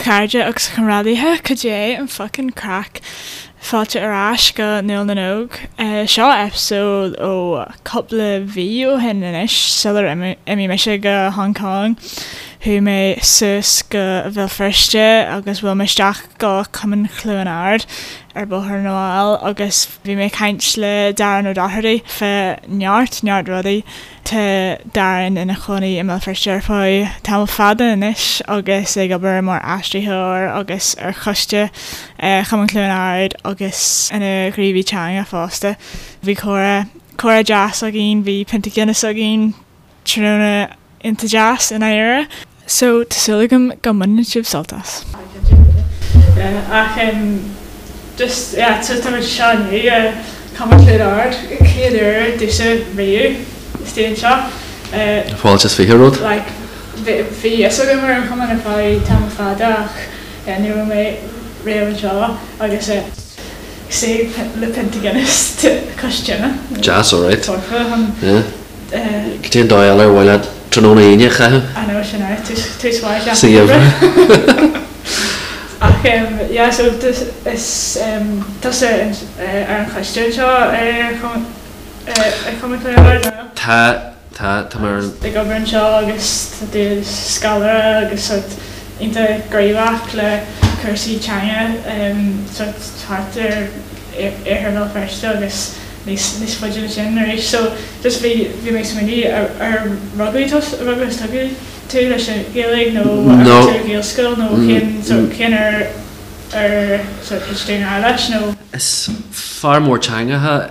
chairde agus a chomrádaithe, cad é an fuckin' craic? Fáilte ar ais go Nuala na nÓg. Seo episode ó cúpla mhí ó shin anois, sular imigh mise go Hong Kong. Chuaigh mé suas go Bhéal Feirste agus bhuail mé isteach go Cumann Chluain Ard ar Bhóthar na bhFál agus bhí mé ag caint le Darren O'Doherty fá neart, neart rudaí. Tá Darren ina chónaí i mBéal Feirste ar feadh tamall fada anois agus ag obair mar aistritheoir agus ar choiste Chumann Chluain Ard agus ina ghníomhaí teanga fosta. Bhí comhrá, comhrá deas againn, bhí pionta Guinness againn, tráthnóna iontach deas i ndáiríre. So, tá súil agam go mbaineann sibh sult as. Ach just, yeah, so tá muid anseo inniu i Cumann Chluain Ard, chéad uair domhsa riamh istigh anseo. Fáilte is 20 romhat. Like, bhí fhios agam ar an chumann ar feadh tamall fada ach yeah, ní raibh mé riamh anseo agus suí le pionta Guinness cois tine. Deas, alright. Foirfe chun. Yeah. Cad é an dóigh eile ar mhaith leat tráthnóna Aoine a chaitheamh? I know, sin é, tús mhaith Sa gheimhreadh. Ach yeah, so is tusa ar an choiste anseo ar Chumann Chluain Ard, nó? Tá, tá, tá mé ar an. Ag obair anseo agus tá tú i do scoláire agus sort iontach gníomhach le cúrsaí teanga sort thart ar iarthar Bhéal Feirste agus níos níos faide ná sin arís. So just bhí bhí mé ag smaoineamh ar ar rugadh tú rugadh agus tógadh tú leis an Ghaeilge nó ar No. tú ar Ghaelscoil nó cén sort cén uair ar sort thit tú i ngrá leis nó? Is fear mór teangacha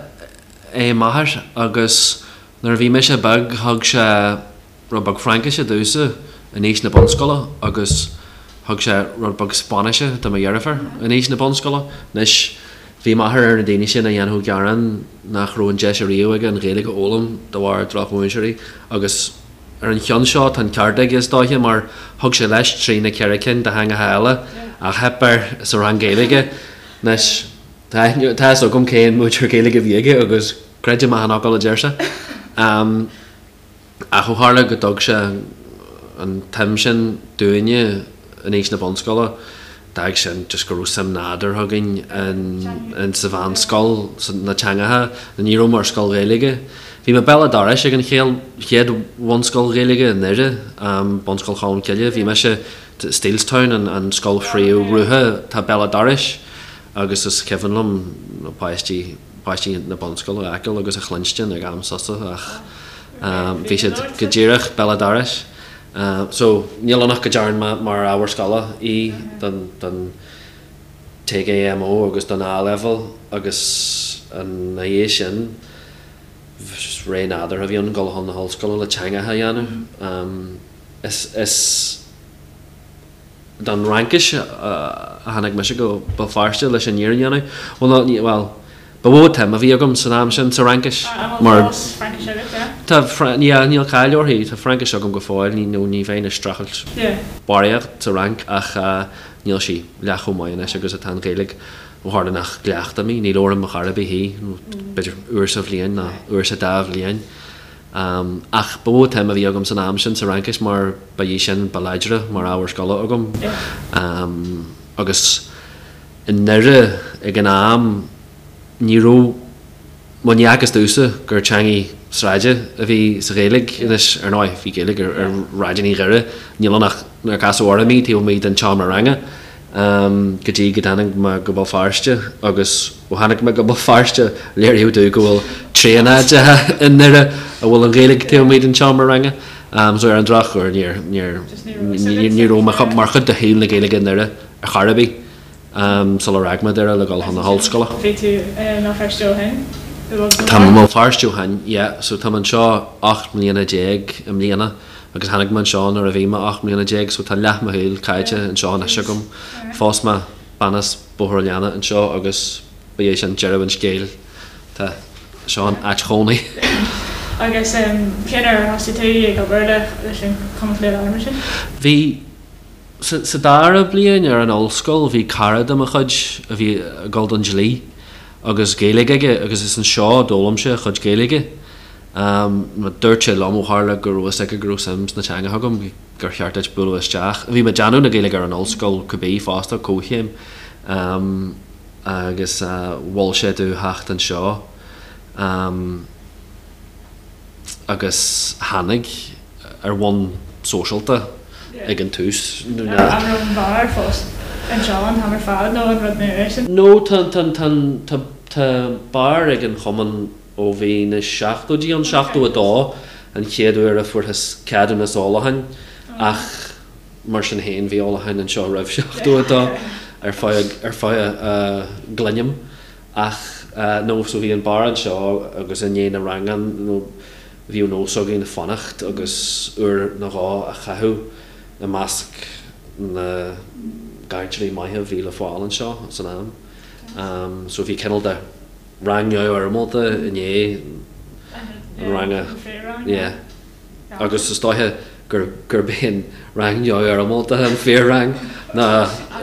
é m'athair agus nuair a bhí mise beag thug sé rud beag Fraincise domhsa in aois na bunscoile agus thug sé rud beag Spáinnise do mo dheirfiúr in aois na bunscoile. Anois, bhí m'athair ar na daoine sin a dhéanfadh gearán nach raibh an deis ariamh aige an Ghaeilge a fhoghlaim de bharr drochmhúinteoirí agus ar an cheann seo tá an ceart aige is dóiche mar thug sé leis trí nó ceithre cinn de theangacha eile ach theip air sa rang Gaeilge. Anois, tá fhios agam cén múinteoir Gaeilge a bhí aige agus creidim achan fhocal a deir sé. Ach ó tharla go dtug sé an tsuim sin dúinne in aois na bunscoile, d'fhág sin just go raibh suim nádúrtha againn in sa mheánscoil sna teangacha. Ní raibh mé ar scoil Ghaeilge. Bhí mé béal an dorais ag an chéad bhunscoil Ghaeilge i nDoire, Bunscoil Cholmcille. Bhí mise, Steelstown an scoil phríomh-rogha atá béal an dorais agus is cuimhin liom na páistí, páistí na bunscoile a fheiceáil agus a chluinstin ag am sosa ach bhí siad go díreach béal an dorais. So níl ann ach go dtearn mé mar ábhar scoile í don don TGMO agus don A-Level agus ina dhiaidh sin ré nádúrtha a bhí ann dul chun na hollscoile le teangacha a dhéanamh. Is is don Fhraincis a tháinig mise go Béal Feirste leis an fhírinne a dhéanamh. Bhuel, nó, ní, bhuel, ba mhó an tsuim a bhí agam san am sin sa Fhraincis An bhfuil mar. fós Fraincis agat, yeah? Tá, yeah, níl caill uirthi, tá Fraincis agam go fóill, ní, nó ní bheinn ag streachailt Yeah. barraíocht sa Fhrainc ach níl sí leath chomh maith anois agus atá an Ghaeilge ó tharla nach gcleachtaim í, ní labhraím ar chor ar bith í, nó b'fhéidir uair sa bhliain nó uair sa dá bhliain. Ach ba mhó an tsuim a bhí agam san am sin sa Fhraincis mar ba í sin ba láidre mar ábhar scoile agam. Agus i nDoire ag an am ní raibh, bhuel ní fhacthas domhsa gur teangaidh sráide a bhí sa Ghaeilge. Anois, ar ndóigh, bhí Gaeilge ar shráideanna Dhoire, níl ann ach nár casadh orm í taobh amuigh den tseomra ranga. Go dtí go dtáinig mé go Béal Feirste agus ó tháinig mé go Béal Feirste léiríodh domh go bhfuil tréan áiteacha i nDoire a bhfuil an Ghaeilge taobh amuigh den tseomra ranga. So ar an drochuair níor, níor, ní raibh mé mar chuid de shaol na Gaeilge i nDoire ar chor ar bith sular fhág mé Doire le dul chun na hollscoile. Bhí tú i mBéal Feirste ó shin? Tá mé i mBéal Feirste ó shin, yeah. So tá mé anseo 18 mbliana i mbliana. Agus tháinig mé anseo nuair a bhí mé 18 mbliana so tá leath mo shaoil caite anseo anois agam. Phós mé bean as Bóthar an Leanna anseo agus ba é sin deireadh an scéil. Tá seo an áit chónaí. Agus cén uair a thosaigh tú ag obair leis an Chumann Chluain Ard mar sin? Bhí, sa dara bliain ar an ollscoil bhí cara de mo chuid a bhí ag dul don dlí agus Gaeilge aige agus is anseo a d'fhoghlaim sé a chuid Gaeilge. Dúirt sé liom ó tharla go raibh fhios aige go raibh suim sna teangacha agam. gur cheart duit bualadh isteach. Bhí mé ag déanamh na Gaeilge ar an ollscoil cibé fosta, comhchéim, agus mhol sé domh theacht anseo agus tháinig ar bhonn sóisialta ag an tús. An raibh an beár fós anseo an t-am ar fad nó an rud nua é sin? No, tá, tá, tá, tá, tá beár ag an chumann ó bhí na seachtóidí ann, 72 an chéad uair a fuarthas ceadúnas ólacháin ach mar sin féin bhí ólachán anseo roimh 72 ar feadh ar feadh a gcluinim ach no so bhí an beár anseo agus i ndiaidh na ranganna nó bhíodh nós againn fanacht agus uair nó dhó a chaitheamh i measc na gcainteoirí maithe a bhí le fáil anseo san am so bhí cineál de rang neamhfhoirmeálta i ndiaidh an ranga. Yeah. Agus is dóiche gur gurb é an rang neamhfhoirmeálta an fíor-rang ná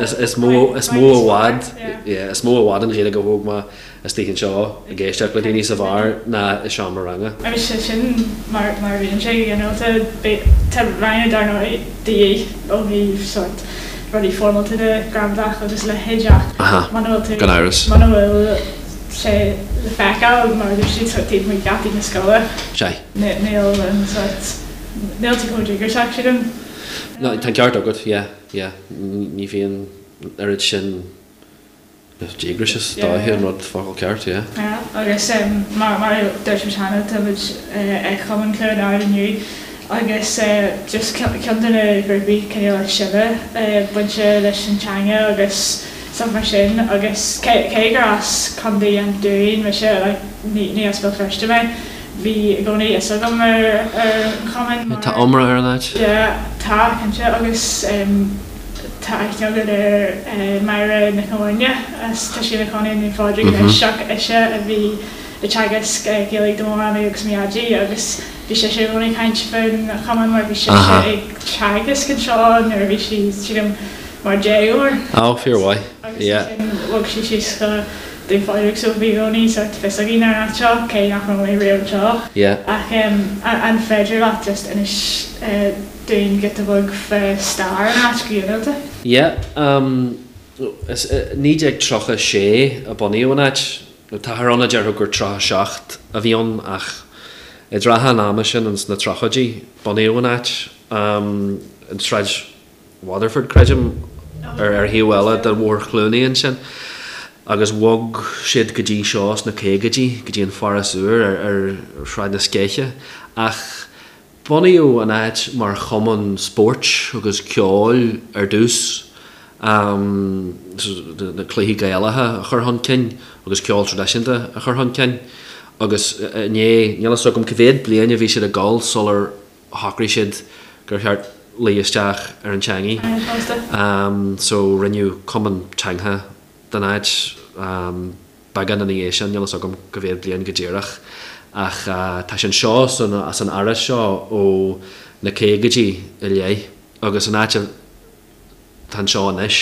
is mó is mó i bhfad yeah, is mó i bhfad an Ghaeilge a thóg mé istigh anseo ag éisteacht le daoine sa bheár ná i seomra ranga. Agus sé sin mar mar a bhíonn sé go ginearálta. Tá ranganna dar ndóigh de dhíth ó thaobh sórt rudaí foirmeálta de, gramadach agus a leithéid ach muna bhfuil tú, Gan amhras. muna bhfuil sé le feiceáil mar a dúirt siad sórt taobh amuigh gheataí na scoile, Sea. níl an sórt, níl tú chomh díograiseach sílim. No, tá an ceart agat, yeah, yeah. Ní bhíonn an oiread sin Díograis is dóiche an rud focal ceart, yeah. Yeah, agus mar mar a dúirt muid cheana, tá muid ag Cumann Chluain Ard inniu agus just ceann de na grúpaí cineál is sine bainte leis an teanga agus stuff mar sin agus cé cé gur as Contae an Dúin mise, like ní ní as Béal Feirste mé, bhí i gcónaí fhios agam ar ar an chumann mar. Tá iomrá ar an áit. Yeah, tá, cinnte agus. Tá aithne agat ar Máire Nic an Bhairne as, tá sí ina cónaí i nDún Phádraig anois ach ise a bhí ag teagasc Gaeilge do mo mhamaí agus mo dhaidí agus bhí sise i gcónaí ag caint faoin chumann mar bhí sise ag teagasc anseo nuair a bhí sí, sílim, mar dhéagóir. Ó, fíormhaith, Agus ansin bhog sí síos go Dún Phádraig so bhí i gcónaí sórt fios againn ar an áit seo cé nach raibh mé riamh anseo. Ach an féidir leat just inis dúinn giota beag fá stair an áit go ginearálta. Yeah, is i 1936 a bunaíodh an áit. Táthar ann a déarfadh gur 37 a bhí ann ach i dtrátha an ama sin, ins na tríochaidí, bunaíodh an áit. In Sráid Waterford, creidim, ar thaobh eile de Bhóthar Chluanaí ansin. Agus bhog siad go dtí seo sna caogaidí, go dtí an Foras Úr ar Shráid na Sceiche. Ach Bunaíodh an áit mar chumann spóirt agus ceoil ar dtús, na cluichí Gaelacha a chur chun cinn agus ceol traidisiúnta a chur chun cinn agus i ndiaidh, níl a fhios agam cá mhéad bliain a bhí siad ag dul sular shocraigh siad gur cheart luí isteach ar an teangaidh. So rinneadh cumann teangtha den áit. Beagán ina dhiaidh sin, níl a fhios agam cá mhéad bliain go díreach, ach tá sé anseo san áras seo ó na caogaidí i leith agus an áit atá anseo anois,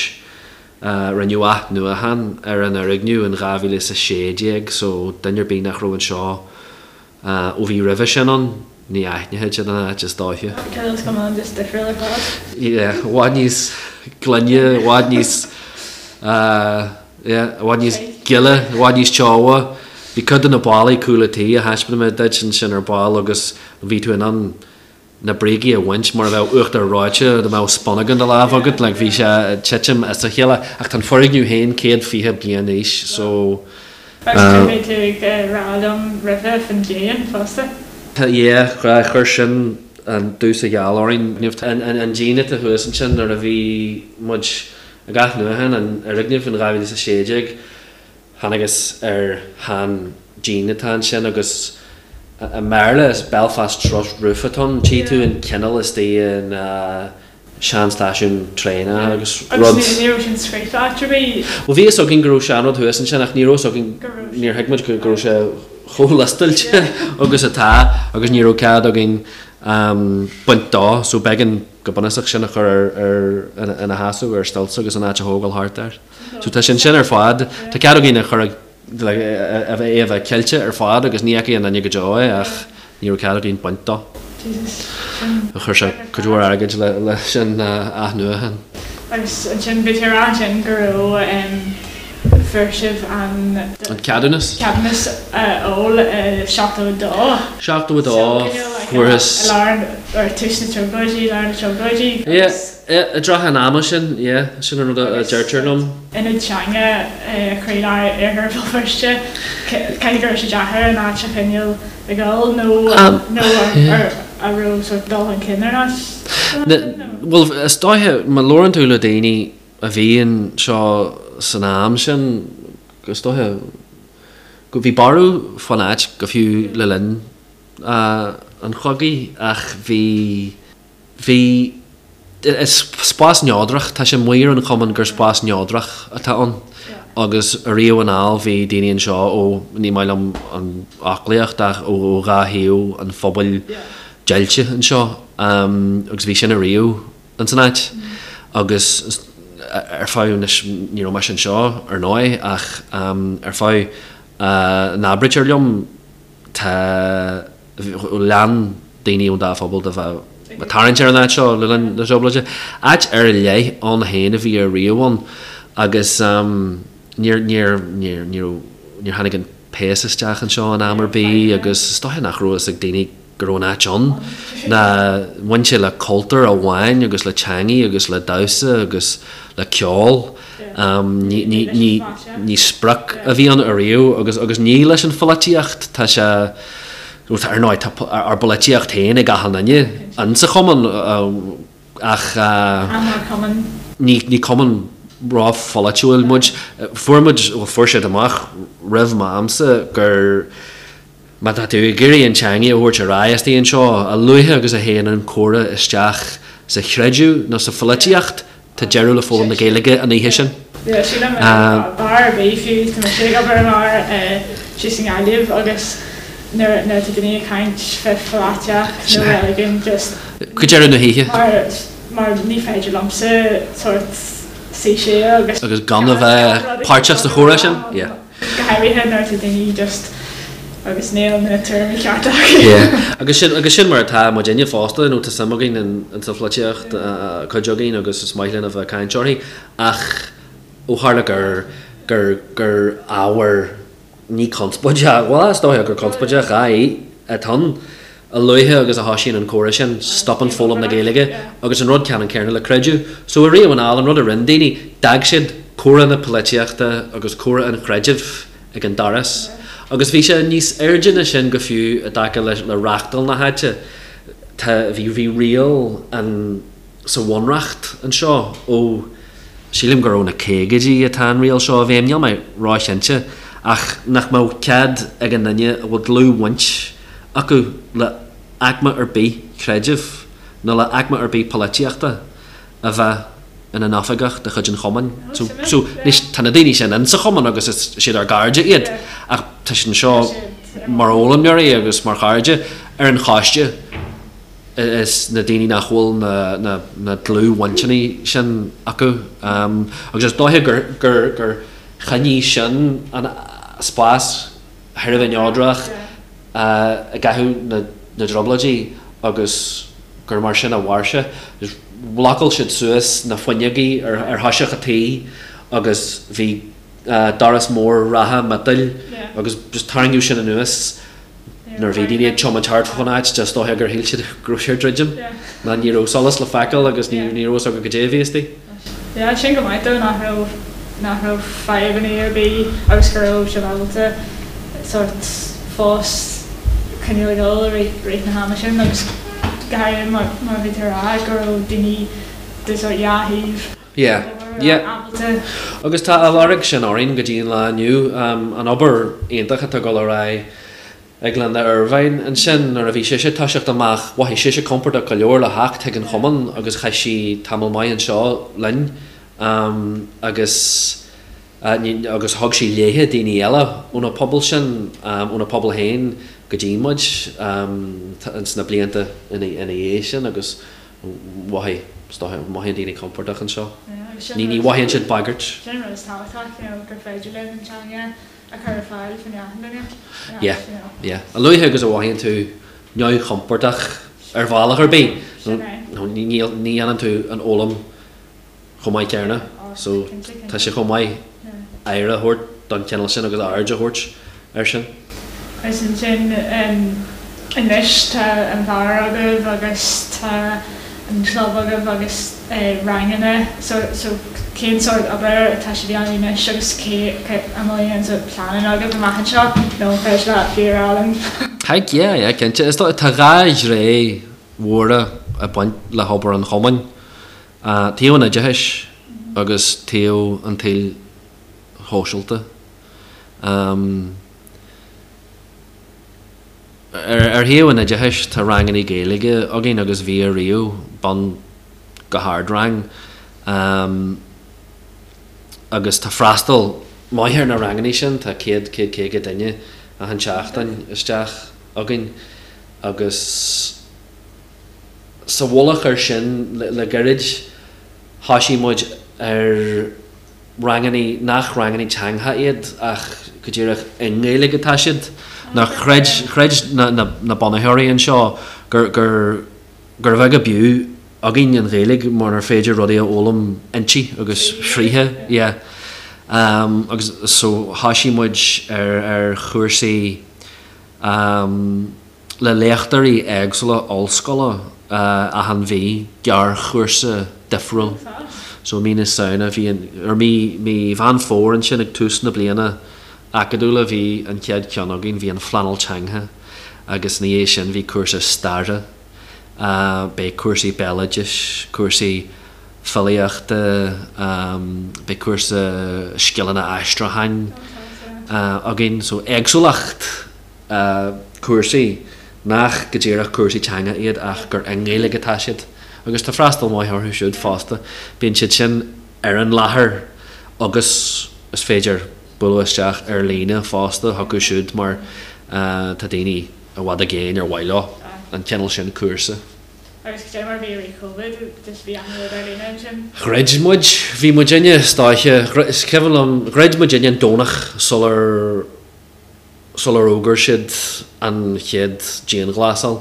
rinneadh athnuachan ar an fhoirgneamh in 2016 so duine ar bith nach raibh anseo Ó bhí roimhe sin ann, ní aithneoidh siad an áit is dóiche. Cineál scamall just difriúil ar fad. Yeah, i bhfad níos glaine, i bhfad níos, yeah, i bhfad níos gile, i bhfad níos teo. Bhí cuid de na ballaí cúl an tí a thaispeáin mé duit ansin ar ball agus bhí tú in ann na brící a bhaint mar a bheadh uachtar reoite dá mbeadh spúnóg in do lámh agat, like bhí sé ag titim as a chéile ach tá an foirgneamh féin 120 bliain d'aois so. Agus bhí tú ag rá liom roimhe faoin díon fosta. Yeah, chuir sin an dubh sa gheal orainn. An díon atá thuas ansin nuair a bhí muid ag athnuachan an fhoirgnimh in 2016, Thángthas ar shean díon atá ansin agus i mBéarla is Belfast Truss Roof atá ann. Tchí tú an cineál istigh in sean stáisiún traenach agus rud. Agus ní raibh sin scríofa áit ar bith? Bhuel bhí fhios againn go raibh seanrud thuas ansin ach ní raibh fhios againn, níor thuig muid go raibh sé chomh liostáilte agus atá agus ní raibh cead againn baint dó so b'éigean go bunúsach sin a chur ar ina sheasamh ar stilts agus an áit a thógáil thart air. So tá sé ansin ar fad, tá cead againn a chur ag, like, a bheith, é a bheith ceilte ar fad agus ní fheicfidh aon duine go deo é ach ní raibh cead againn baint dó. Jesus, sin. Chuir sé cuid mhór airgid le sin a athnuachan. Agus ansin bhí tú ag rá ansin go raibh fuair sibh an. An ceadúnas. Ceadúnas a fháil i 72. 72 fuarthas. I lár or tús na dTrioblóidí, lár na dTrioblóidí. Yeah, yeah, i dtrátha an ama sin, yeah, sin an rud a deirtear liom. Ionad teanga i chroílár Iarthar Bhéal Feirste. Caithfidh go raibh sé deacair an áit a choinneáil ag dul nó nó an raibh sort dul chun cinn ar an áit? Bhuel, is dóiche, má labhrann tú le daoine a bhí anseo san am sin, is dóiche go bhí borradh fán áit go fiú le linn an chogaidh ach bhí, Bhí, is spás neodrach, tá sé amuigh ar an chumann gur spás neodrach atá ann agus ariamh anall bhí daoine anseo ó, ní maith liom an fhoclaíocht ach ó dhá thaobh an phobail deighilte anseo agus bhí sin ariamh ins an áit agus ar feadh, anois ní raibh mise anseo ar ndóigh ach ar feadh a n-abraítear liom Tá, lean daoine ón dá phobal de bheith ag tarraingt ar an áit seo le linn na dTrioblóidí. Áit ar leith ann féin a bhí ariamh ann agus níor, níor, níor, ní raibh, níor tháinig an péas isteach anseo in am ar bith agus is dóiche nach raibh fhios ag daoine go raibh an áit ann ná bhain sé le cultúr amháin agus le teangaidh agus le damhsa agus le ceol. Ní sprioc a bhí ann ariamh agus agus ní leis an pholaitíocht tá sé ar ndóigh tá ár bpolaitíocht féin ag achan duine insa chumann ach ní cumann ró-pholaitiúil muid. Fuair muid, bhuel fuair siad amach roimh m'amsa gur Má tá tú ag iarraidh an teangaidh a thabhairt ar aghaidh istigh anseo, a luaithe agus a théann an comhrá isteach sa chreideamh nó sa pholaitíocht, tá deireadh le foghlaim na Gaeilge an oíche sin. Sílim beár ar bith fiú tá mise ag obair i mbeár síos i nGaillimh agus nuair nuair atá daoine ag caint fé pholaitíocht nó reiligiún just Go deireadh na hoíche. mar mar ní féidir liomsa sórt suí siar agus Agus gan a bheith páirteach sa chomhrá sin, yeah. Go háirithe nuair atá daoine just agus níl na tuairimí cearta acu. Yeah. Agus sin, agus sin mar atá muidinne fosta, you know, tá suim againn in, in sa pholaitíocht, cuid againn agus is maith linn a bheith ag caint uirthi, ach ó tharla gur, gur, gur ábhar ní conspóideach, bhuel is dóiche gur conspóideach é atá ann, A luaithe agus a thoisíonn an comhrá sin, stopann foghlaim na Gaeilge, agus an rud ceannann céanna le creideamh. So ariamh anall, an rud a rinne daoine, d'fhág siad comhrá na polaitíochta agus comhrá an chreidimh ag an doras. Agus bhí sé níos airde ná sin go fiú i dtaca le le reachtáil na háite. Tá, bhí, bhí riail an, sa bhunreacht anseo ó, sílim gur ó na caogaidí atá an riail seo i bhfeidhm, níl mé róchinnte, ach nach mbeadh cead ag an duine a bhfuil dlúthbhaint acu le haicme ar bith creidimh nó le haicme ar bith polaitíochta a bheith ina n-oifigeach de chuid an chumainn. So, so, anois, tá na daoine sin insa chumann agus is siad ár gcairde iad ach tá siad anseo mar fhoghlaimeoirí agus mar chairde ar an choiste is na daoine nach bhfuil na, na, na dlúthbhainteanna sin acu. Agus is dóiche gur, gur, gur choinnigh sin an spás thar a bheith neodrach i gcaitheamh na dTrioblóidí agus gur mar sin a mhair sé. Bhlocáil siad suas na fuinneogaí ar thoiseach an tí agus bhí doras mór reatha miotail agus just tarraingíodh sin anuas nuair a bhí daoine ag tiomáint thart fán áit, is dóiche gur shíl siad go raibh sé ag druidim nó ní raibh solas le feiceáil agus ní raibh fhios acu goidé a bhí istigh. Yeah, sin go maith though nach raibh, nach raibh fadhbanna ar bith agus go raibh sibh ábalta sórt fós coinneáil ag dul i rith, rith na hama sin agus go háirithe mar, mar a bhí tú a rá go raibh daoine de sórt dhá thaobh Yeah, yeah. ábalta. Agus tá a lorg sin orainn go dtí an lá inniu, an obair iontach atá ag dul ar aghaidh ag Linda Ervine ansin nuair a bhí sise ag toiseacht amach, mhothaigh sise compordach go leor le theacht chuig an chumann agus chaith sí tamall maith anseo linn agus agus thug sí léithe daoine eile óna pobal sin, óna pobal féin go dtí muid ins na blianta ina dhiaidh sin agus mhothaigh, is dóiche, mothaíonn daoine compordach anseo. Ní ní mhothaíonn siad bagairt. Sin an rud is tábhachtach, you know, gur féidir linn an teanga a chur ar fáil fá choinne achan duine. Yeah, yeah. A luaithe agus a mhothaíonn tú neamhchompordach. ar bhealach ar bith nó ní dhéanann tú an fhoghlaim chomh maith céanna. So tá sé chomh maith aire a thabhairt don chineál sin agus aird a thabhairt air sin. Agus ansin anois tá an beár agaibh agus tá an club agaibh agus ranganna so so cén sórt obair atá sibh a dhéanamh anois agus cé an bhfuil aon sórt pleananna agaibh amach anseo nó an féidir leat fiú a rá linn? Heck yeah, yeah cinnte. Is dóigh tá dhá ghné mhóra ag baint le hobair an chumainn. Taobh an oideachais agus taobh an tsaoil shóisialta. Ar thaobh an oideachais, tá ranganna Gaeilge againn agus bhí ariamh, bun go hardrang, agus tá freastal maith ar na ranganna sin, tá 100, 150 duine achan tseachtain isteach againn agus sa mhullach air sin, le gairid thoisigh muid ar rangannaí nach rangannaí teanga iad ach go díreach i nGaeilge atá siad. Nó chreid, chreid na, na, na bunaitheoirí anseo gur, gur, gur bheag ab fhiú againn an Ghaeilge munar féidir rudaí a fhoghlaim inti agus fríthi, yeah. Um, agus so thoisigh muid ar, ar chúrsaí um, le léachtóirí éagsúla ollscoile achan mhí, gearrchúrsa difriúil. So mí na Samhna bhí an, or mí, mí Mheán Fómhair ansin ag tús na bliana acadúla bhí an chéad cheann againn, bhí an phleanáil teanga agus ina dhiaidh sin bhí cúrsa staire, beidh cúrsaí béaloidis, cúrsaí filíochta, beidh cúrsa scileanna aistriúcháin againn. So éagsúlacht. cúrsaí nach go díreach cúrsaí teanga iad ach gur i nGaeilge atá siad agus tá freastal maith orthu siúd fosta. Bíonn siad sin ar an láthair agus is féidir bualadh isteach ar líne fosta chucu siúd mar tá daoine i bhfad i gcéin ar mhaith leo an cineál sin cúrsa. Agus cad é mar a bhí i rith Covid, just bhí achan rud ar líne ansin? Dhruid muid, bhí muidinne is dóiche, is cuimhin liom, dhruid muidinne an Domhnach sular sular fhógair siad an chéad dianghlasáil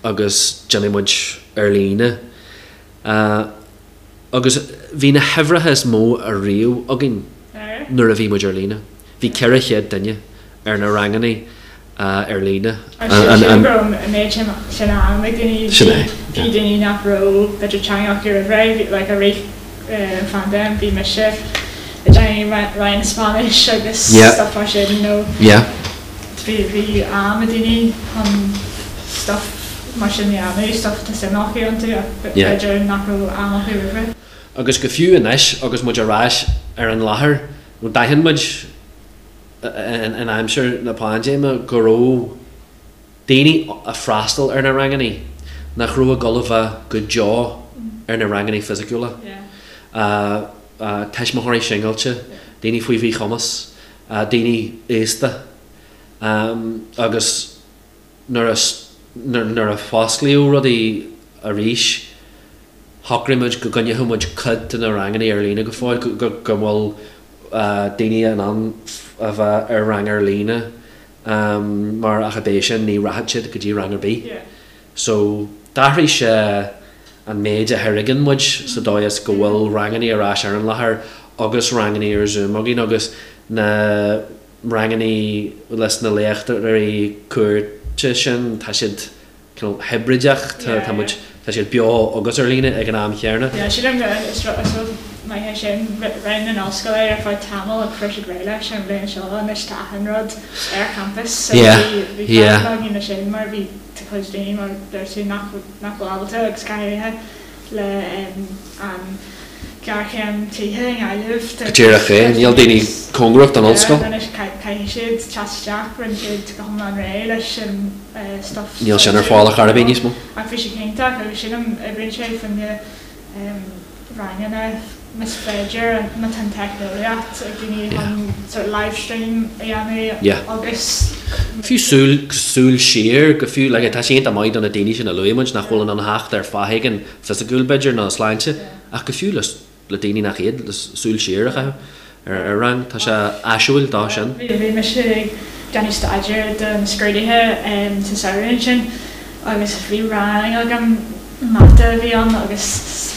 agus d'imigh muid ar líne agus bhí na huimhreacha is mó ariamh againn nuair a bhí muid ar líne. Bhí 400 duine ar na ranganna ar líne. Agus sílim go raibh an méid sin am ag daoine, bhí daoine nach raibh b'fhéidir teanga acu roimh ré, like i rith an phaindéim bhí mise ag déanamh roinn Spáinnis agus stuff mar sin nó bhí bhí am ag daoine chun stuff mar sin a dhéanamh, stuff atá suim acu iontu ach b'fhéidir nach raibh am acu roimh ré. Agus go fiú anois agus muid ar ais ar an láthair, d'aithin muid in aimsir na paindéime go raibh daoine ag freastal ar na rangannaí nach raibh ag dul a bheith go deo ar na rangannaí fisiciúla. Tuismitheoirí singilte, daoine faoi mhíchumas, daoine aosta agus nuair a nuair a fosclaíodh rudaí arís shocraigh muid go gcoinneodh muid cuid de na rangannaí ar líne go fóill, go go bhfuil daoine in ann a bheith ar rang ar líne mar ach ab é sin ní rachaidh siad go dtí rang ar bith. So d'athraigh sé an méid a thairgeann muid sa dóigh is go bhfuil rangannaí ar ais ar an láthair agus rangannaí ar Zoom againn agus na rangannaí leis na léachtóirí cuairte sin tá siad cineál hibrideach, tá muid, tá siad beo agus ar líne ag an am chéanna. Yeah, sílim go, is rud maith é sin. Rinne an ollscoil é ar feadh tamaill ach fuair siad réidh leis an bhliain seo, anois tá achan rud ar champas so bhí, bhí fadhb againn leis sin mar bhí, tá cuid daoine mar deir tú nach, nach bhfuil ábalta agus go háirithe le an ghéarchéim tithe i nGaillimh. Go díreach é, níl daoine cóngarach don ollscoil. Anois caithfidh siad teacht isteach, rinne siad go hiomlán réidh leis an stuff. Níl sin ar fáil ar chor ar bith níos mó. Ach bhí sé iontach agus sílim oibríonn sé fá choinne ranganna más féidir, má tá an teicneolaíocht ag daoine chun sort of live stream a dhéanamh agus. Fiú súil, súil siar go fiú, like tá sé iontach maith do na daoine sin a luaigh muid nach bhfuil in ann theacht ar fáth éigin fisiciúil b'fhéidir nó sláinte ach go fiú le le daoine nach iad le súil siar a chaitheamh ar rang, tá sé áisiúil dó sin. Bhí mise ag déanamh staidéir do na scrúduithe sa samhradh ansin. Agus bhí rang agam, mata a bhí ann agus is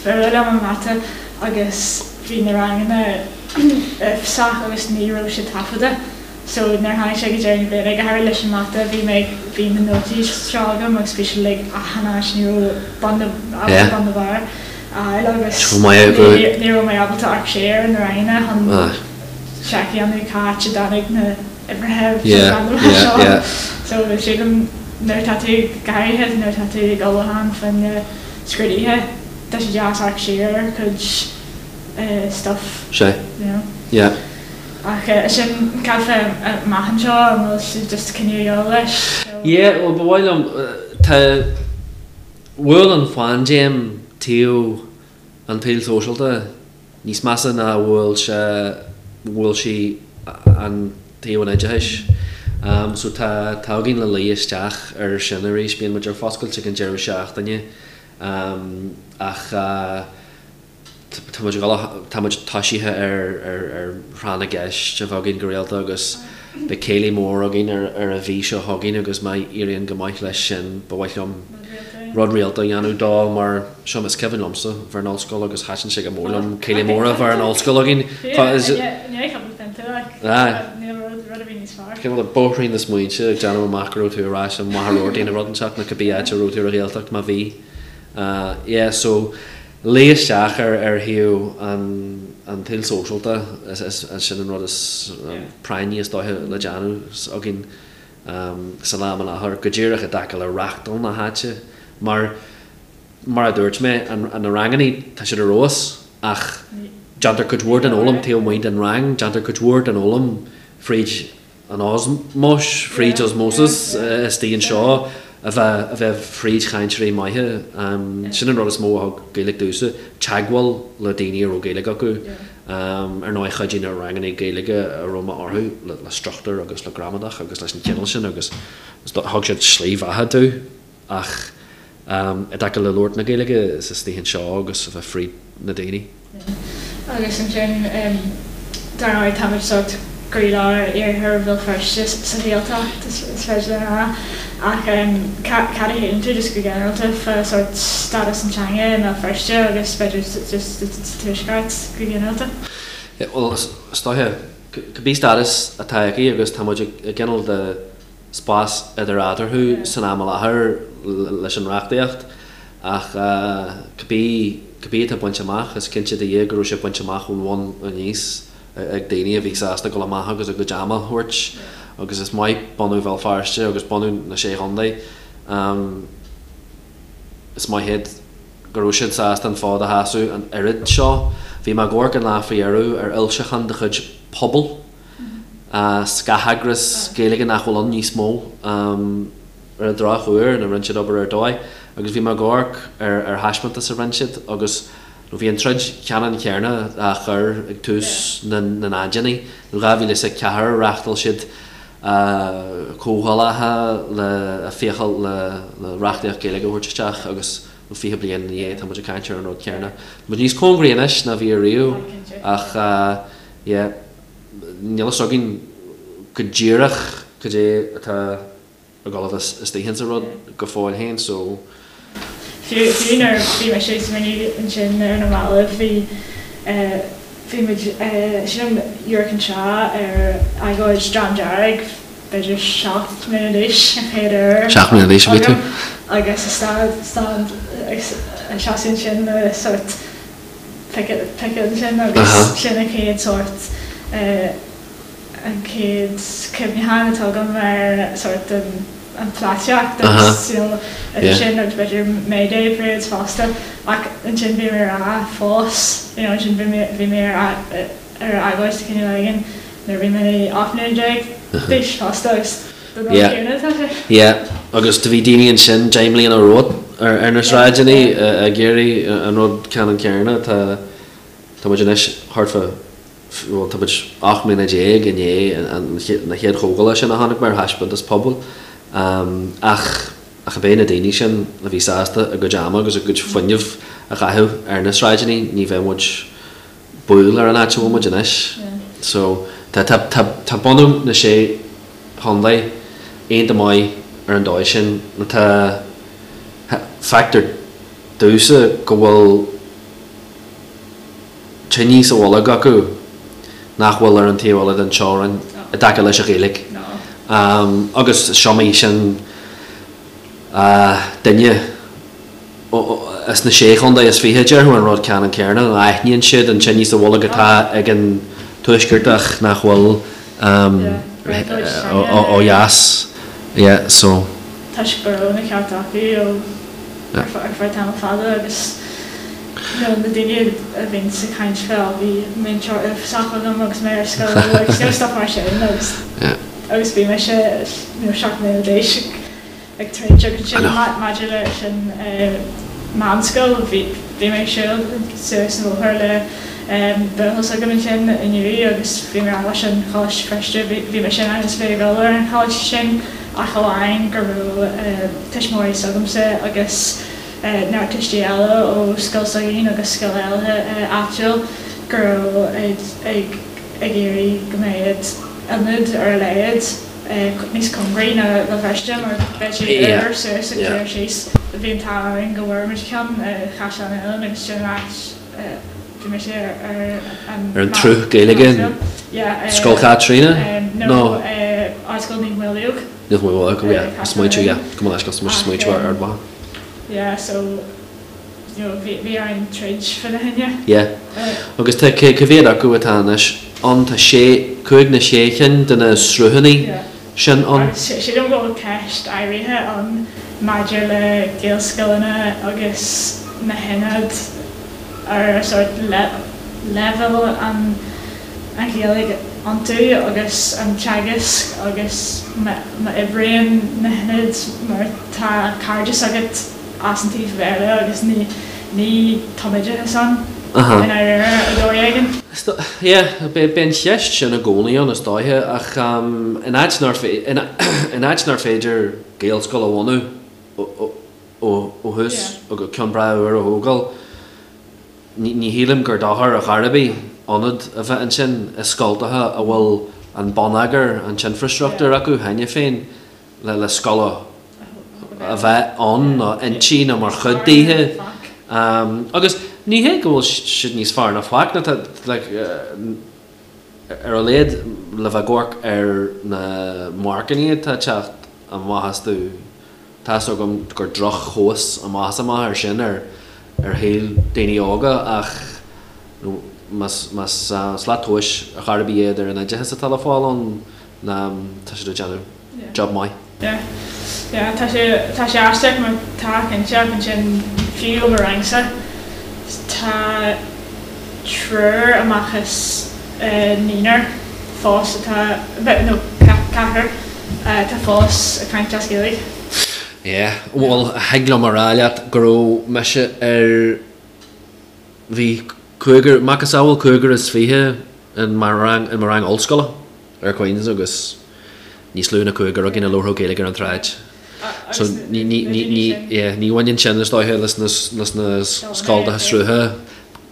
fuath liom an mata agus bhí na ranganna uafásach agus ní raibh siad taifeadta. So nuair a tháinig sé go deireadh na bliana, go háirithe leis an mata, bhí mé ag, bhí na nótaí seo agam agus bhí siad like achan áit, ní raibh bun ná, ábalta bun ná barr a fháil agus ní raibh mé ábalta amharc siar ar na ranganna chun seic a dhéanamh cá háit a dtáinig na uimhreacha randomach seo. So sílim nuair atá tú, go háirithe nuair atá tú ag ullmhúchán fá choinne scrúduithe, tá sé deas amharc siar ar chuid stuff, you know. Ach sin, cad fá amach anseo, an bhfuil sibh just cinneadh a dhul leis? Yeah, bhuel ba mhaith liom, tá, bhuail an phaindéim taobh an tsaoil sóisialta níos measa ná a bhuail sé, bhuail sí an taobh an oideachais. So tá, tá againn le luí isteach ar sin arís, bíonn muid ar foscailt ag an deireadh seachtaine ach, Tá muid ag dul, tá muid toisithe ar thráth na gceist a bheith againn go rialta agus beidh céilí mór againn ar an mhí seo chugainn agus má éiríonn go maith leis sin ba mhaith liom rud rialta a dhéanamh dó mar seo is cuimhin liomsa bheith in ollscoil agus thaitin sé go mór liom céilí mór a bheith in ollscoil againn. Cineál de bóithrín na smaointe ag déanamh amach go raibh tú ar ais i Machaire Rabhartaigh nó rud inteacht nó cibé áit a raibh tú ar an Ghaeltacht má bhí. Yeah so luí isteach ar ar thaobh an an tsaoil sóisialta is is sin an rud is práinní is dóiche le déanamh againn san am i láthair go díreach i dtaca le reachtáil na háite mar mar a dúirt mé an na rangannaí tá siad ar fheabhas ach déantar cuid mhór den fhoghlaim taobh amuigh den rang déantar cuid mhór den fhoghlaim fríd an osmóis, fríd osmosis istigh anseo, a bheith, a bheith fríd chainteoirí maithe. Sin an rud is mó a thug Gaeilge domhsa, teagmháil le daoine a raibh Gaeilge acu. Ar ndóigh chuidigh na ranganna Gaeilge a raibh mé orthu le struchtúr agus le gramadach agus leis an chineál sin agus thug siad slí bheatha domh ach i dtaca le labhairt na Gaeilge is istigh anseo agus a bheith fríd na daoine. Agus ansin, dar ndóigh, táimid sórt gcroílár iarthar Bhéal Feirste sa Ghaeltacht, is féidir linn a rá. Ach cad a shíleann tú just go ginearálta fá sórt stádas an teanga i mBéal Feirste agus b'fhéidir just sa Tuaisceart go ginearálta? Bhuel, is dóiche, cibé stádas atá aici agus tá muid i gcineál de spás idir eatarthu san am i láthair leis an reachtaíocht ach cibé cibé atá bainte amach, is cinnte do Dhia go raibh sé bainte amach ón bhun aníos ag daoine a bhí sásta dul amach agus a gcuid ama a thabhairt agus is maith bunú Bhéal Feirste agus bunú na Sé Chontae. Is maith iad go raibh siad sásta an fód a sheasamh an oiread seo. Bhí mé ag amharc an lá faoi dheireadh ar fhoilseachán de chuid Pobal. Scatheagras Gaeilge nach bhfuil ann níos mó ar an drochuair, nó rinne siad obair ar dóigh, agus bhí mé ag amharc ar ar thaispeántas a rinne siad agus nó bhí an troid cheannann chéanna á chur ag tús na ndaicheadaí, nó 2004 reáchtáil siad comhdhálacha le fiachal le le reachtaíocht Gaeilge a thabhairt isteach agus nó 20 bliain ina dhiaidh tá muid ag caint ar an rud céanna. Tá muid níos cóngaraí anois ná bhí ariamh ach yeah. Níl a fhios againn go díreach cad é atá ag dul a bheith istigh insa rud go fóill féin so. Fiú fiú nuair a bhí mise ag smaoineamh ansin ar na mallaibh bhí bhí muid sílim amharc anseo ar agóid Dream Dearg b'fhéidir 7 mbliana d'aois an chéad uair 7 mbliana d'aois a bhí tú? agus stad stad ag seasamh ansin le sórt piocadh ansin agus sin an chéad sórt, an chéad cuimhneachán atá agam ar sórt an pholaitíocht agus you know idir sin agus b'fhéidir May Day parades fosta ach ansin bhí mé ar a fós you know ansin bhí mé bhí mé ar ar agóid de chineál éigin nuair a bhí mé 18 mbliana d'aois fosta agus Yeah. Yeah. Agus do bhí daoine ansin 10 mbliana romhat ar na sráideanna ag iarraidh an rud ceannann céanna. Tá tá muid anois thart fá bhuel tá muid 18 mbliana i ndiaidh na chéad chomhdhála sin a chonaic mé ar thaispeántas Pobal. Ach ach ab é na daoine sin a bhí sásta a gcuid ama agus a gcuid fuinnimh a chaitheamh ar na sráideanna ní bheadh muid baol ar an áit a bhfuil muid anois. So, tá, tá, tá, tá bunú na Sé Chontae iontach maith. ar an dóigh sin nó tá, feictear domhsa go bhfuil tine sa bholg acu nach bhfuil ar an taobh eile den teorainn i dtaca leis an Ghaeilge. Agus is iomaí sin duine as na Sé Chontae is 20 a déarfadh an rud ceannann céanna, aithníonn siad an tine sa bholg atá ag an Tuaisceartach nach bhfuil ó dheas. Yeah, so. Toisc go raibh na cearta acu ó ar feadh tamall fada agus you know na daoine a bhíonns ag caint fá bhí múinteoir sách agam agus mé ar scoil agus you know stuff mar sin agus agus bhí mise you know 7 mbliana d'aois ag troid agus ansin maidir le sin meánscoil bhí bhí mé ag siúl suas an bóthar le buachaill s'agam ansin inniu agus bhí mé ag rá leis an Choláiste Feirste bhí bhí mise in ainm is a bheith ag dul ar an choláiste sin ach amháin go raibh tuismitheoirí s'agamsa agus neart tuistí eile ó scoil s'againn agus scoil eile áitiúil go raibh ag ag iarraidh go mbeadh ionad ar a laghad níos cóngaraí ná Béal Feirste mar bheadh sé uair suas agus uair síos. Bhí an t-ádh orainn go bhfuair muid ceann i Chaisleán Uidhilín agus sin an áit bhí mise ar an Ar an tsruth Gaeilge Scoil Chaitríona nó Ardscoil Naomh Maolmhaodhóg. Naomh Maolmhaodhóg, yeah, smaointiú, yeah, go mba leis go smaointiú ar Ard Mhacha. Yeah, so you know bhí bhí orainn troid fá choinne. Yeah. Agus tá cé cá mhéad acu atá anois ann? Tá sé, cúig nó sé chinn de na sruthanna sin ann. Agus sílim go bhfuil ceist áirithe ann maidir le Gaelscoileanna agus na hionaid ar sórt leibhéal an an Ghaeilge iontu agus an teagasc agus má oibríonn na hionaid mar tá cairdeas agat as an taobh Bhéarla agus ní ní tumoideachas ann i ndáiríre ar dhóigh éigin. Yeah, beidh an cheist sin i gcónaí ann is dóiche ach in áit nár in áit nár féidir Gaelscoil a bhunú ó thús agus ceann breá úr a thógáil, Ní shílim gur dochar ar chor ar bith ionad a bheith ansin i scoltacha a bhfuil an bonneagar, an t-infreastruchtúr acu cheana féin le scoil a bheith ann nó inti nó mar chuid daoithe. Agus ní hé go bhfuil siad níos fearr ná faic nó tá like ar a laghad le bheith ag amharc ar na marcanna atá ag teacht amach astu. Tá's agam gur droch-thomhas amach is amach é sin ar shaol daoine óga ach más slat tomhais ar chor ar bith iad ar an oideachas atá le fáil ann tá siad ag déanamh job maith. Yeah. Yeah, tá sé, tá sé aisteach mar tá cinnte ach ansin fiú i mo rangsa tá triúr amach as naonúr fós atá, nó ceathrar atá fós ag caint as Gaeilge. Yeah, bhuel, thig liom a rá leat go raibh mise ar, bhí cúigear, macasamhail cúigear is 20 in mo rang, in mo rang ollscoile ar Queen's agus níos lú ná cúigear againn a labharfadh Gaeilge ar an tsráid. So ní, ní, ní, ní, yeah, ní bhaineann sin is dóiche leis na, leis na scoltacha srutha,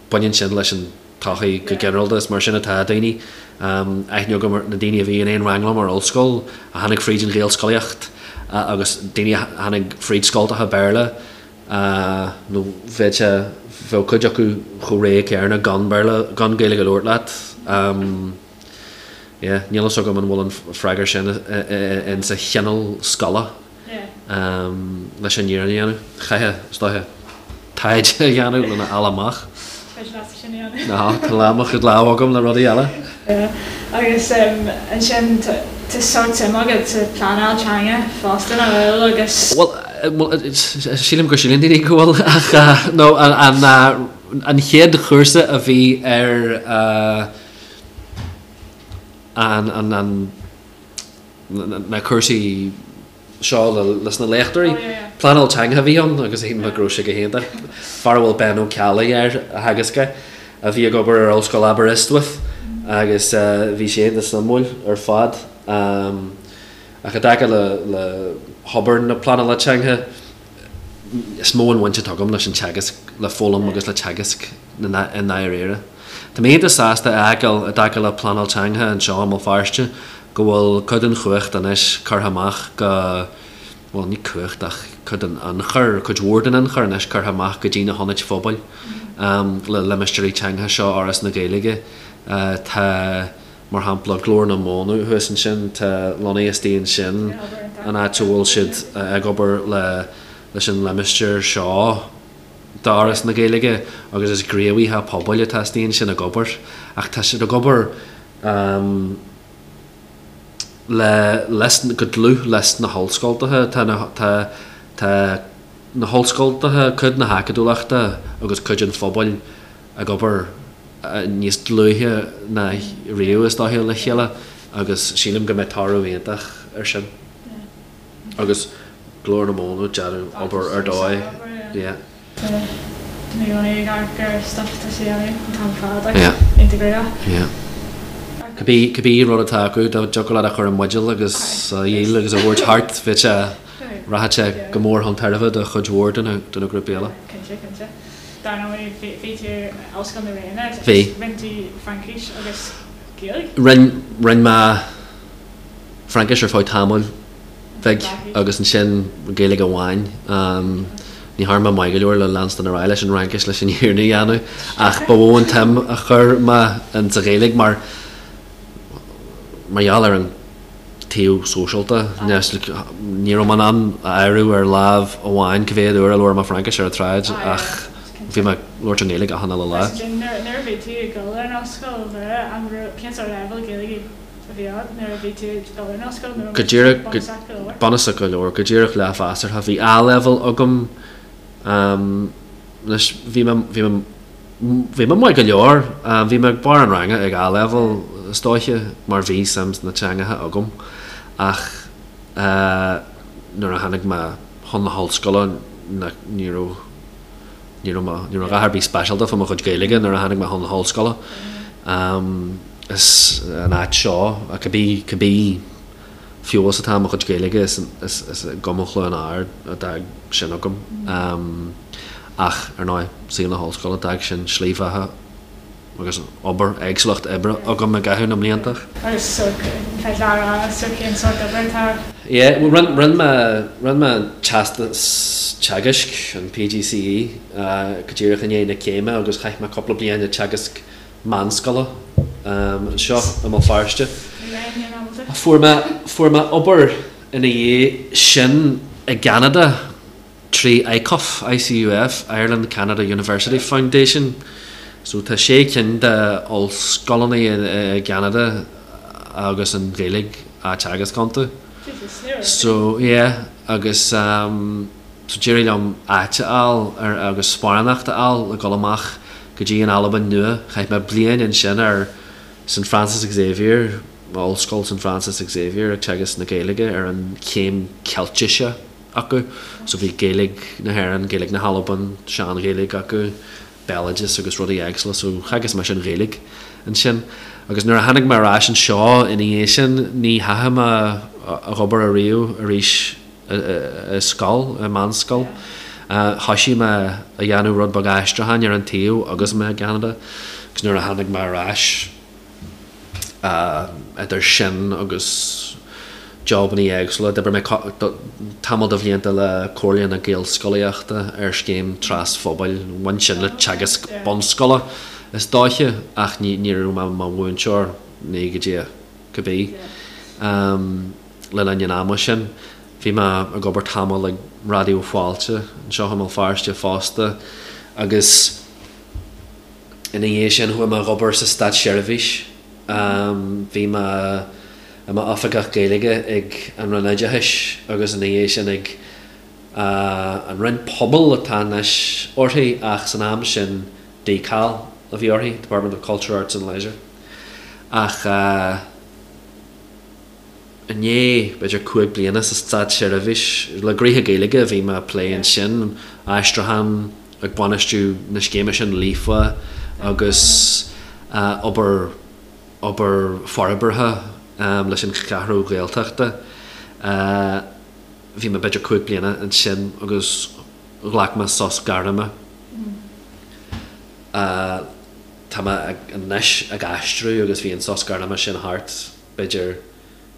baineann sin leis an tsochaí go ginearálta. Is mar sin atá daoine. Aithne agam ar na daoine a bhí in aon rang liom ar ollscoil, a tháinig fríd an Ghaelscolaíocht agus daoine a tháinig fríd scoltacha Béarla nó bheadh sé, bheadh cuid acu chomh réidh céanna gan Béarla, gan Gaeilge a labhairt leat. Yeah, níl fhios agam an bhfuil an freagra sin in sa chineál scoile. leis an fhírinne a dhéanamh. Chaithfeá, is dóiche, taighde a dhéanamh lena fháil amach. Féidir leatsa sin a dhéanamh. Ná, tá lán mo chuid lámh agam le rudaí eile. Agus ansin tá sórt suim agat sa pleanáil teanga fosta, nach bhfuil? Agus. Bhuel, sílim go síleann daoine go bhfuil ach nó an chéad chúrsa a bhí ar an na cúrsaí seo leis na léachtóirí. Pleanáil teanga a bhí ann agus shíl mé go raibh sé go hiontach. Fear a bhfuil Ben Ó Ceallaigh air a theagasc é, a bhí ag obair ar Ollscoil Aberystwyth agus bhí sé iontach suimiúil ar fad. Ach i dtaca le hobair na pleanála teanga, is mó an bhaint atá agam leis an teagasc, le foghlaim agus le teagasc i ndáiríre. Tá mé iontach sásta a fheiceáil i dtaca le pleanáil teanga anseo i mBéal Feirste go bhfuil cuid den chumhacht anois curtha amach go. bhuel, ní cumhacht ach cuid den ionchur, cuid mhór den ionchur anois curtha amach go dtí na hionaid phobail le limistéirí teangacha seo Fhoras na Gaeilge. Tá, mar shampla, Glór na Móna thuas ansin, tá lonnaithe istigh ansin, an áit a bhfuil siad ag obair le leis an limistéar seo d'Fhoras na Gaeilge agus is gníomhaithe pobail atá istigh ansin ag obair ach tá siad ag obair le leis go dlúth leis na hollscoltacha. Tá na tá tá na hollscoltacha, cuid na hacadúlachta agus cuid an phobail ag obair níos dlúithe ná riamh is dóiche le chéile agus sílim go mbeidh toradh iontach ar sin. Agus Glór na Móna, déanamh obair ar dóigh, yeah. Tá mé i gcónaí ag amharc ar stuff atá sé a dhéanamh an t-am ar fad agus iontach gnóthach. Yeah. Cibé, cibé rud atá acu, dá dtiocfadh leat a chur i mbuidéal agus a dhíol agus a thabhairt thart, bheadh sé, rachadh sé go mór chun tairbhe do chuid mhór de na, de na grúpaí eile. Cinnte, cinnte. Dar ndóigh, bhí, bhí tú in Ollscoil na Ríona, Bhí. Rinne tú Fraincis agus Gaeilge? Rinn, rinn mé Fraincis ar feadh tamaill bhig agus ansin Gaeilge amháin. Ní thearn mé maith go leor le leanstan ar aghaidh leis an Fhraincis leis an fhírinne a dhéanamh ach ba mhó an tsuim a chuir mé in sa Ghaeilge mar mar gheall ar an taobh sóisialta. Ní raibh mé in ann a áireamh ar lámh amháin cá mhéad uair a labhair mé Fraincis ar an tsráid ach bhí mé ag labhairt an Ghaeilge achan uile lá. Nuair a bhí tú ag dul ar an ollscoil, cén sórt leibhéal Gaeilge a bhí agat nuair a bhí tú ag dul ar an ollscoil nó Go díreach, bunúsach go leor? Bunúsach go leor, go díreach leathmheasartha. Bhí A-level agam anois bhí mé, bhí mé, bhí mé maith go leor. Bhí mé ag barr an ranga ag A-level is dóiche mar bhí suim sna teangacha agam ach nuair a tháinig mé chun na hollscoile ní raibh, ní raibh mé, ní raibh a dhath ar bith speisialta fá mo chuid Gaeilge nuair a tháinig mé chun na hollscoile. Is an áit seo, cibé, cibé feabhas atá i mo chuid Gaeilge, is, is, is i gCumann Chluain Ard a d'fhág sin agam. Ach, ar ndóigh, saol na hollscoile, d'fhág sin slí bheatha agus obair, éagsúlacht oibre agam i gcaitheamh na mblianta. Agus so, féidir leat a rá, so cén sórt oibre atá? Yeah, bhuel, rinne, rinne mé, rinne mé an teastas teagaisc, an PGCE, go díreach i ndiaidh na céime agus chaith mé cúpla bliain ag teagasc meánscoile anseo i mBéal Feirste. Fuair mé, fuair mé obair ina dhiaidh sin i gCeanada trí ICUF, ICUF, Ireland Canada University Foundation. So tá sé cinn de ollscoileanna i gCeanada agus an Ghaeilge á teagasc iontu. So yeah, agus so d'éirigh liom áit a fháil ar agus sparánacht a fháil le dul amach go dtí an Albain Nua. Chaith mé bliain ansin ar St Francis Xavier, Ollscoil St Francis Xavier ag teagasc na Gaeilge ar an chéim Ceiltise acu. So bhí Gaeilge na hÉireann, Gaeilge na hAlban, Sean-Ghaeilge acu, béaloideas agus rudaí éagsúla. So theagasc mé an Ghaeilge ansin. Agus nuair a tháinig mé ar ais anseo ina dhiaidh sin, ní theachaigh mé ag obair ariamh arís i scoil, i meánscoil. Thoisigh mé a dhéanamh rud beag aistriúcháin ar an taobh agus mé i gCeanada agus nuair a tháinig mé ar ais, idir sin agus jobannaí éagsúla, d'oibrigh mé tamall de bhlianta le Comhairle na Gaelscolaíochta ar scéim trasphobail, bhain sin le teagasc bunscoile is dóiche ach ní raibh mé i mo mhúinteoir, ní go dtí cibé. Le linn an ama sin, bhí mé ag obair tamall ag Raidió Fáilte anseo i mBéal Feirste fosta agus ina dhiaidh sin chuaigh mé ag obair sa státseirbhís. Bhí mé i m'oifigeach Gaeilge ag an Roinn Oideachais agus ina dhiaidh sin ag an Roinn Pobail atá anois uirthi ach san am sin DCAL a bhí uirthi, Department of Culture, Arts and Leisure. Ach. I ndiaidh, b'fhéidir, 5 bliana sa státseirbhís, le gnoithe Gaeilge a bhí mé ag plé ansin, aistriúchán, ag bainistiú na scéime sin Líofa agus obair, obair forbartha leis an Cheathrú Ghaeltachta. Bhí mé b'fhéidir 5 bliana ansin agus ghlac mé sos gairme. Tá mé anois ag aistriú agus bhí an sos gairme sin thart. b'fhéidir,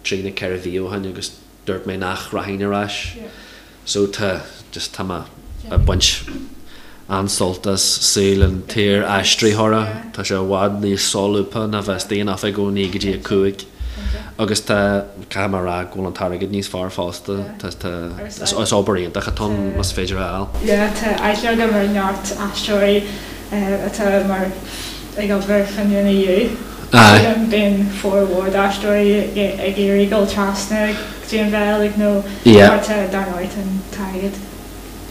trí nó 4 mhí ó shin agus dúirt mé nach rachainn ar ais. So tá, just tá mé ag baint an-sult as saol an tsaor-aistritheora. Tá sé i bhfad níos solúbtha ná bheith istigh in oifig ó 9 go dtí 5. Agus tá, caithfidh mé a rá go bhfuil an t-airgead níos fearr fosta. Tá, tá, is obair iontach atá ann más féidir a fháil. Yeah, tá aithne agam ar neart aistritheoirí atá mar ag obair chun an EU. Aye. Sílim bíonn formhór d'aistritheoirí ag iarraidh dul trasna go dtí an Bheilg nó Yeah. mar tá dar ndóigh tá an t-airgead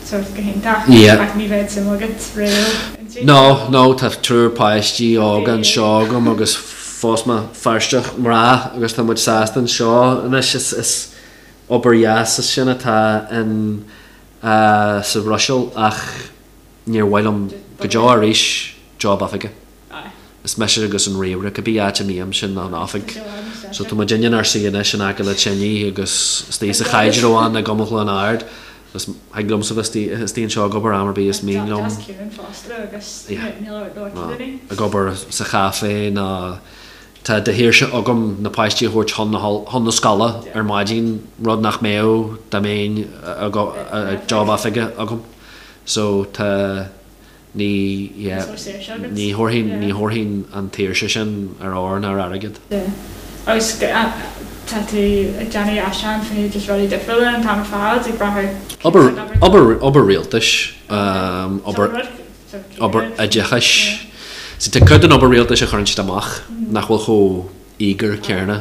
sórt go hiontach Yeah. ach ní bheadh suim agat riamh inti. No, no, tá triúr páistí óga anseo agam agus phós mé Feirsteach mná agus tá muid sásta anseo anois. Is, is obair dheas is sin atá in, sa Bhruiséil ach níor mhaith liom go deo arís job oifige. Is mise agus an ríomhaire, cibé áit a mbím, sin an oifig. So tá muid inár suí anois in aice le tine agus istigh sa Chaidreamhán i gCumann Chluain Ard. Agus thig liomsa bheith istigh anseo ag obair am ar bith is mian liom. Ag obair sa chaifé nó tá de shaoirse agam na páistí a thabhairt chun na chun na scoile ar maidin, rud nach mbeadh dá mbeinn ag job oifige agam. So tá ní yeah ní thabharfainn ní thabharfainn an tsaoirse sin ar ór ná ar airgead. Yeah. Agus tá tú ag déanamh aistriúchán faoi just rudaí difriúla an t-am ar fad ag brath ar Obair obair obair rialtais obair obair oideachais. See tá cuid den obair rialtais a chuireann siad amach nach bhfuil chomh íogair céanna.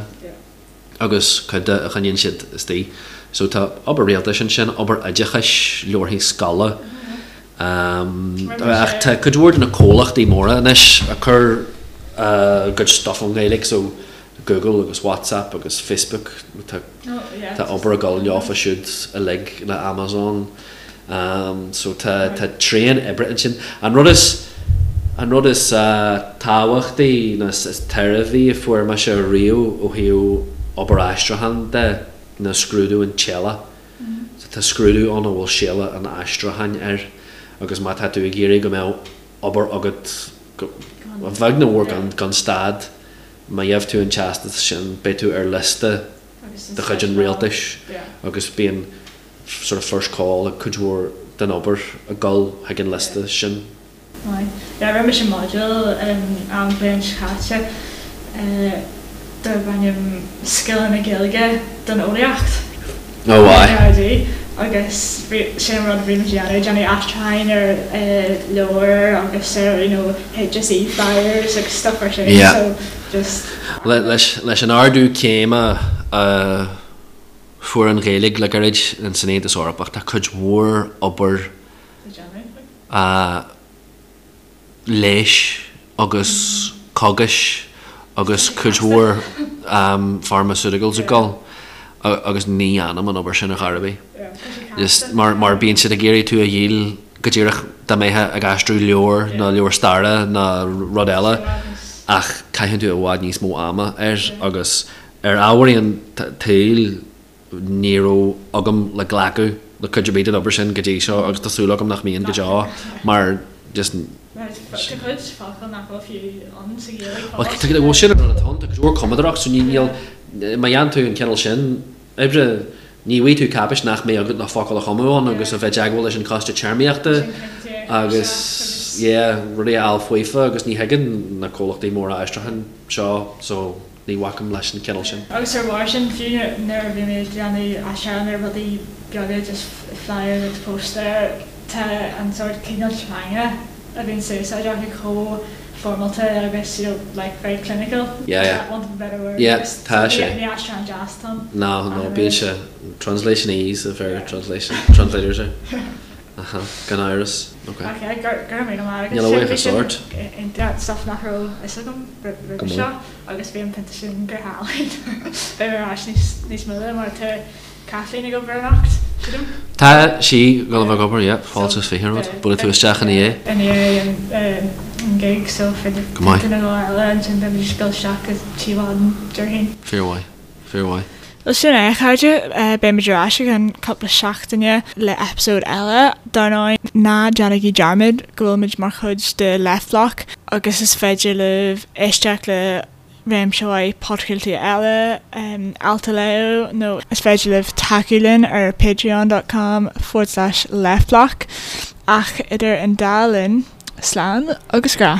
agus cuid de a choinníonn siad istigh. So tá obair rialtais ansin, obair oideachais, leabharthaí scoile. Ach tá cuid mhór de na comhlachtaí móra anois ag cur a gcuid stuff ón nGaeilge, so Google agus WhatsApp agus Facebook, tá tá obair ag dul leofa siúd uilig le Amazon. So tá tá tréan oibre ansin. An rud is an rud is tábhachtaí nó is tairbhí a fuair mise riamh ó thaobh obair aistriúcháin de ná scrúdú an tséala. So tá scrúdú ann a bhfuil séala an aistriúcháin air agus má tá tú ag iarraidh go mbeadh obair agat go a bheag nó a mhór gan gan stad, má gheibh tú an teastas sin beidh tú ar liosta de chuid an rialtais agus bíonn sort of first call ag cuid mhór den obair ag dul chuig an liosta sin. Maith. Yeah, rinne mise module an bhliain seo caite darb ainm Scileanna Gaeilge don Eolaíocht. Oh aye. RD, agus sé an rud a bhí muid a dhéanamh, déanamh aistriúcháin ar leabhair agus ar you know HSE flyers agus stuff mar sin. Yeah. So just. Leis an ardú céime a Fuair an Ghaeilge le gairid san Aontas Eorpach. Tá cuid mhór obair leighis agus cógais agus cuid mhór pharmaceuticals ag dul agus ní dhéanaim an obair sin ar chor ar bith. Just mar mar bíonn siad ag iarraidh tú a dhíol go díreach dá mbeifeá ag aistriú leabhar nó leabhar staire nó rud eile ach caitheann tú i bhfad níos mó ama air agus Ar ámharaí an tsaoil, ní raibh agam le glacadh le cuid ar bith den obair sin go dtí seo agus tá súil agam nach mbíonn go deo mar just. Tá cuid focal nach bhfuil fiú ann sa Ghaeilge fós. Bhuel sin an rud atá ann, tá cuid mhór cumadóireacht so níl, má dhéanann tú an cineál sin oibre, ní bhfaighidh tú cáipéis nach mbeidh agat le focal a chumadh ann agus a bheith i dteagmháil leis an choiste téarmaíochta agus yeah, rudaí a fháil faofa agus ní thuigeann na comhlachtaí móra aistriúcháin seo so. Ní bhacaim leis an chineál sin. Agus ar bharr sin, fiú nuair a bhí mé ag déanamh aistriúchán ar rudaí beaga, just flyers agus póstaeir, tá an sórt cineál teanga a bhíonn sa úsáid acu chomh foirmeálta agus you know like very clinical, Yeah, yeah. want of a better word, Yeah, just tá sé. ní aistriúchán deas atá ann. No, no, bíonn sé, translationese a bheir translation, translators air. Aha, gan amhras. Ok. Ok, go raibh míle maith agat. Níl a bhuíochas ort. Sin stuff nach raibh fhios agam roimhe seo agus bhí an pionta sin go hálainn. Beidh mé ar ais níos moille mar tá Kathleen ag obair anocht, sílim. Tá sí ag dul a bheith ag obair, yeah. Fáilte is 20 romhat. Buailfidh tú isteach ina dhiaidh. I ndiaidh an gig so féidir pionta nó dhó eile ansin beidh muid ag dul isteach go Tí Mhaidin déarfainn. Fíormhaith. Fíormhaith. Bhuel sin é a chairde, beidh muid ar ais i gceann cúpla seachtaine le eipeasóid eile. Dar ndóigh, ná déanaigí dearmad go bhfuil muid mar chuid de Left Bloc agus is féidir libh éisteacht le. réimse mhaith podchraoltaí eile, ailt a léamh nó is féidir libh tacú linn ar patreon dot com forward slash leftblock. Ach idir an dá linn, slán agus grá.